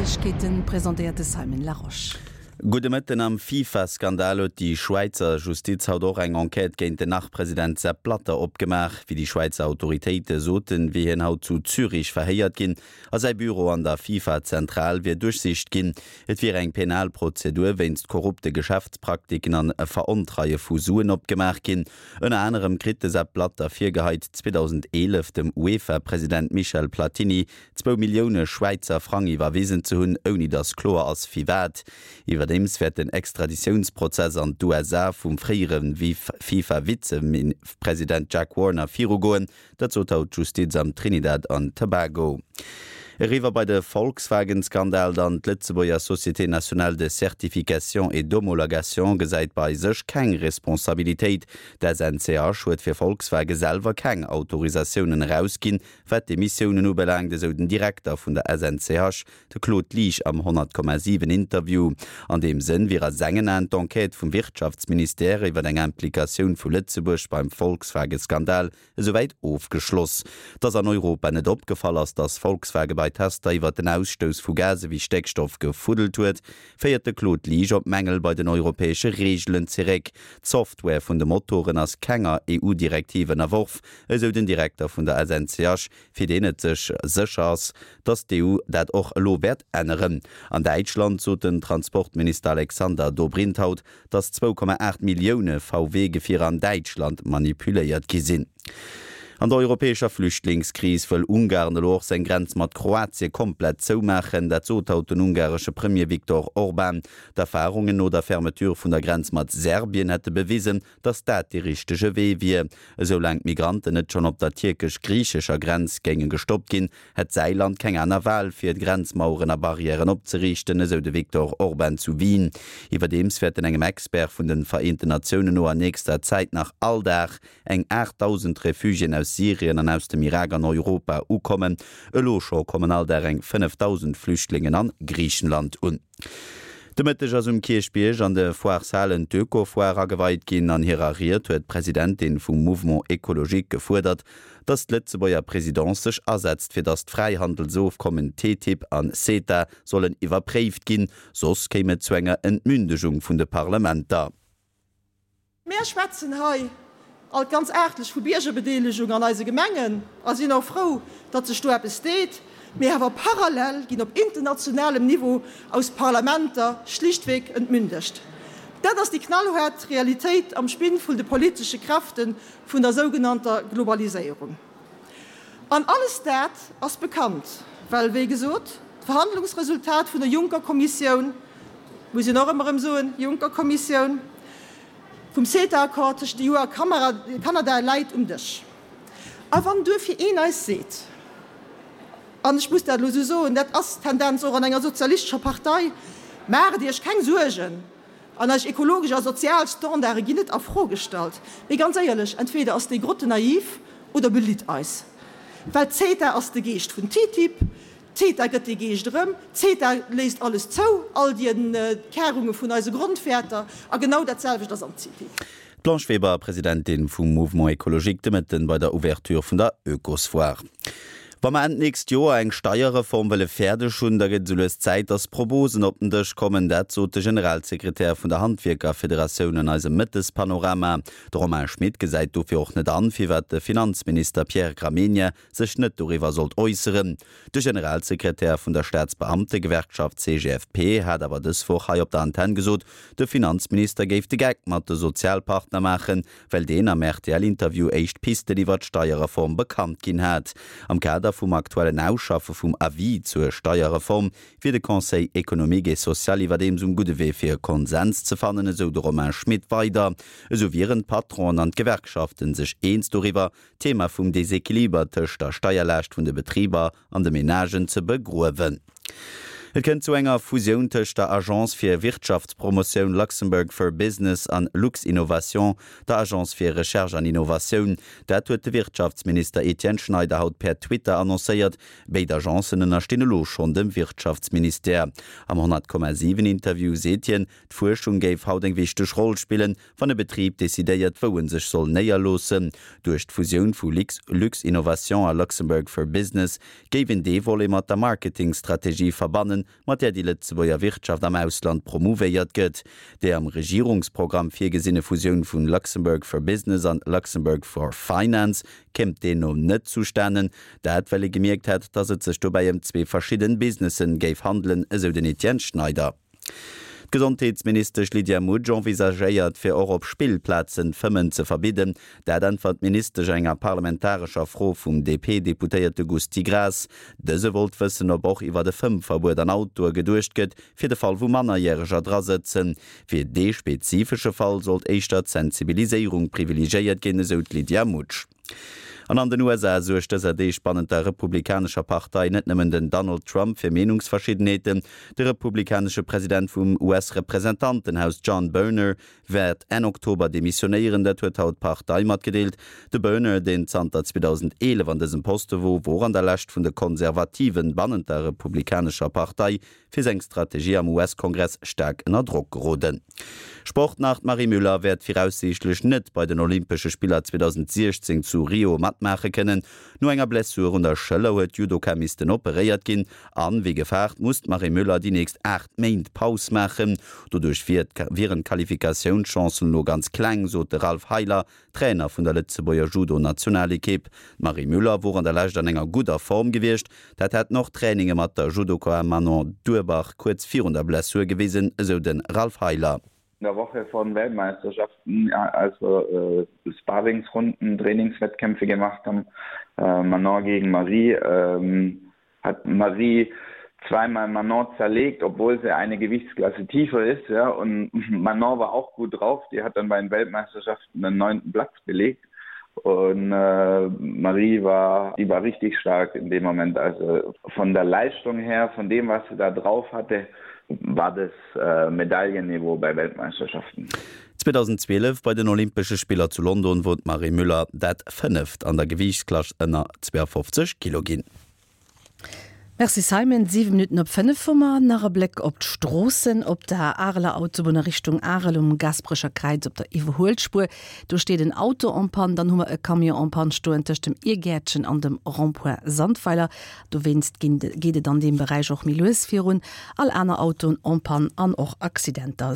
Neiegkeeten, presentéiert de Simon Larosche. Gudde Mëtten. Am FIFA-Skandal huet déi Schwäizer Justiz haut och eng Enquête géint den Nach-President Sepp Blatter opgemaach. Wéi déi Schwäizer Autoritéite soten, wier hien haut zu Zürich verhéiert ginn a säi Büro an der FIFA-Zentral wier duerchsicht ginn. Et wier eng penal Prozedur wéinst korrupte Geschäftspraktiken an Verontreie vu Suen opgemaach ginn. Ënner anerem kritt de Sepp Blatter virgeheit, 2011 dem UEFA-President Michel Platini zwou Millioune Schwäizer Frang iwwerwisen ze hunn, ouni datt kloer ass firwat. Iwwerdeems wäert den Extraditiounsprozess an d'USA vum fréiere FIFA-Vizepresident Jack Warner virugoen. Dat sot haut d'Justiz am Trinidad an Tobago. Eriwwer bei de Volkswagen-Skandal dann, D'Lëtzebuerger Société nationale de certification et d'homologation gesäit bei sech keng Responsabilitéit. D'SNCH huet fir Volkswagen selwer keng Autorisatiounen erausginn, wat d'Emissiounen ubelaangt, esou den Direkter vun der SNCH, De Claude Liesch am 100,7 Interview. An deem Sënn wier a sengen Aen d'Enquête vum Wirtschaftsministère iwwer eng Implikatioun vu Lëtzebuerg beim Volkswagen-Skandal esouwäit ofgeschloss. Dass an Europa net opgefall ass, dass Volkswagen bei Tester iwwer den Ausstouss vu Gase wéi Stéckstoff gefuddelt huet, féiert de Claude Liesch op Mängel bei den europäesche Reegelen zeréck. D'Software vun de Motoren ass kenger EU-Direktiv ënnerworf, esou den Direkter vun der SNCH. fir deen et sech sécher ass, datt d'EU dat och elo wäert änneren. An Däitschland sot den Transportminister Alexander Dobrindt haut, datt 2,8 Millioune VW-Gefierer an Däitschland manipuléiert gi sinn. An der europäescher Flüchtlingskris wëll Ungarn elo och seng Grenz mat Kroatie komplett zoumaachen. Dat sot haut den ungaresche Premier Viktor Orban. D'Erfarungen no der Fermeture vun der Grenz mat Serbien hätte bewisen, datt dat dee richtege Wee wier. Esou laang d'Migranten net schonn op der tierkesch-griichescher Grenz géinge gestoppt ginn, hätt säi Land keng aner Wal, fir Grenzmaueren a Barrièren opzeriichten, esou de Viktor Orban zu Wien. Iwwerdeems wäerten engem Expert vun de Vereenten Natiounen no an nächster Zäit nach all Dag eng 8.000 Refugiéen aus Syrien an aus dem Irak an Europa ukommen. Elo scho kommen all Dag eng 5.000 Flüchtlingen an Griichenland un. De Mëtteg ass um Kierchbierg an de Foireshalen d'Öko-Foire ageweit ginn. An hirer Ried huet d'Presidentin vum Mouvement Ecologique gefuerdert, datt d'Lëtzebuerger Presidence sech asetzt, fir datt d'Fräihandelsofkommen TTIP an CETA sollen iwwerpréift ginn, soss kéim et zu enger Entmündegung vun de Parlementer. Mär schwätzen hei alt ganz aartlech vu Biergerbedeelegung an eise Gemengen a sinn och frou, datt sech do eppes deet. Mee awer parallel ginn op internationalem Niveau aus Parlamenter schlichtweg entmündegt. Dat ass déi knallhaart Realitéit am Spinn vun de politesche Kräfte vun der sougenannter Globaliséierung. An alles dat ass bekannt, well, wéi gesot, d'Verhandlungsresultat vun der Juncker-Kommissioun, muss een och ëmmer erëm soen, Juncker-Kommissioun, vum CETA-Accord tëschent der EU a Kanada läit um Dësch. A wann duerfir een eis seet, an ech muss dat elo esou soen, dat ass d'Tendenz och an enger sozialistescher Partei, Maacht Iech keng Suergen, An eis ekologesch a sozial Standarde ginn net a Fro gestallt. Mee ganz éierlech, entweder ass déi Grotte naiv oder belitt eis. Well CETA ass de Geescht vun TTIP, CETA gëtt dee Geescht erëm, CETA léisst alles zou, all déi Entkärunge vun eise Grondwäerter. A genau dat selwecht ass am TTIP. D'Blanche Weber, Presidentin vum Mouvement Ecologique, de Mëtten bei der Ouverture vun der Oekosfoire. Wa mer Enn d'nächst Joer eng Steierreform wëlle fäerdeg hunn, da gëtt et esou lues Zäit, datt Proposen op den Dësch kommen. Dat sot de Generalsekretär vun der Handwierkerfederatioun an eisem Mëttespanorama. De Romain Schmit gesäit dofir och net an, firwat de Finanzminister Pierre Gramegna sech net doriwwer sollt äusseren. De Generalsekretär vun der Staatsbeamtegewerkschaft CGFP hat awer dës Woch hei op der Antenn gesot, de Finanzminister géif de Geck mat de Sozialpartner maachen, well deen am RTL-Interview éischt Pisten iwwer d'Steierreform bekannt ginn hat. Am Kader vum aktuellen Ausschaffe vum Avis zur Steierreform wier de Conseil économique et social iwwerdeems um gudde Wee fir e Konsens ze fannen, esou de Romain Schmit weider. Esou wieren d'Patronen an d'Gewerkschaften sech eens doriwwer, d'Thema vum Desequiliber tëscht der Steierlaascht vun de Betriber an de Menagen ze begruewen. Et kënnt zu enger Fusioun tëscht der Agence fir Wirtschaftspromotioun Luxembourg for Business an Luxinnovation, der Agence fir Recherche an Innovatioun. Dat huet de Wirtschaftsminister Etienne Schneider haut per Twitter annoncéiert. Béid Agencen ënnerstinn elo schonn dem Wirtschaftsministère. Am 100,7 Interview seet hien, d'Fuerschung géif haut eng wichteg Roll spillen, Wann e Betrib decidéiert, wou en sech soll néierloossen, duerch d'Fusioun vu Luxinnovation a Luxembourg for Business, géif een dee Volet mat der Marketingstrategie verbannen. fannen, mat där déi Lëtzebuerger Wirtschaft am Ausland promouvéiert gëtt. Déi am Regierungsprogramm virgesinne Fusioun vun Luxembourg for Business an Luxembourg for Finance kéim deemno net zustanen. Dat well ee gemierkt hätt, datt et sech dobäi ëm zwee verschidden Businessen géif handelen, esou den Etienne Schneider. D'Gesondheetsministesch Lydia Mutsch envisagéiert, fir och op Spillplazen d'Fëmmen ze verbidden. Dat äntwert d'Ministesch enger parlamentarescher Fro vum DP-Deputéierte Gusty Graas. Dëse wollt wëssen, ob och iwwer e Fëmmverbuet an Autoe geduecht gëtt, fir de Fall wou Mannerjäreger dra sëtzen. Fir dee spezifesche Fall sollt éischter d'Sensibiliséierung privilegiéiert ginn, esou d'Lydia Mutsch. An an den USA suergt dëser Deeg bannent der republikanescher Partei net nëmmen den Donald Trump fir Meenungsverschiddenheeten. De republikanesche President vum US-Representantenhaus John Boehner wäert Enn Oktober demissionéieren. Dat huet haut d'Partei matgedeelt. De Boehner, deen zanter 2011 an dësem Poste wor, wor an der Lescht vun de Konservativen bannent der republikanescher Partei fir seng Strategie am US-Kongress staark ënner Drock geroden. Sport nach, D'Marie Müller wäert viraussiichtlech net bei den Olympesche Spiller 2016 zu Rio matmaache kënnen. No enger Blessur un der Schëller huet d'Judoka missten operéiert ginn an, wéi gefaart, muss d'Marie Müller déi nächst 8 Méint Paus maachen. Doduerch wieren d'Qualifikatiounschancen elo ganz kleng, sot de Ralph Heiler, Trainer vun der Lëtzebuerger Judo-Nationalekipp. D'Marie Müller wor an der Lescht an enger gudder Form gewiescht. Dat hätten och Traininge mat der Judoka Manon Durbach kuerz virun der Blessur gewisen, esou de Ralph Heiler. In der Woche von Weltmeisterschaften, als wir Sparringsrunden, Trainingswettkämpfe gemacht haben, Manon gegen Marie, hat Marie zweimal Manon zerlegt, obwohl sie eine Gewichtsklasse tiefer ist ja und Manon war auch gut drauf, die hat dann bei den Weltmeisterschaften den neunten Platz belegt und äh, Marie war die war richtig stark in dem Moment also von der Leistung her von dem was sie da drauf hatte war das äh, Medaillenniveau bei Weltmeisterschaften. 2012 bei den Olympesche Spiller zu London wor d'Marie Müller dat fënneft an der Gewiichtsklass ënner 52 Kilo ginn. Merci Simon. 7 Minutten op 5 hu mer. Nach e Bléck op d'Stroossen. Op der Areler Autobunn a Richtung Arel um Gaasperecher Kräiz op der Iwwerhuelspuer, do steet en Auto en panne. Dann hu mer e Camion en panne stoen tëscht dem Irgäertchen an dem Rond-point Sandweiler. Dowéinst geet et an deem Beräich och méi lues virun. All aner Autoen en panne an och Accidenter.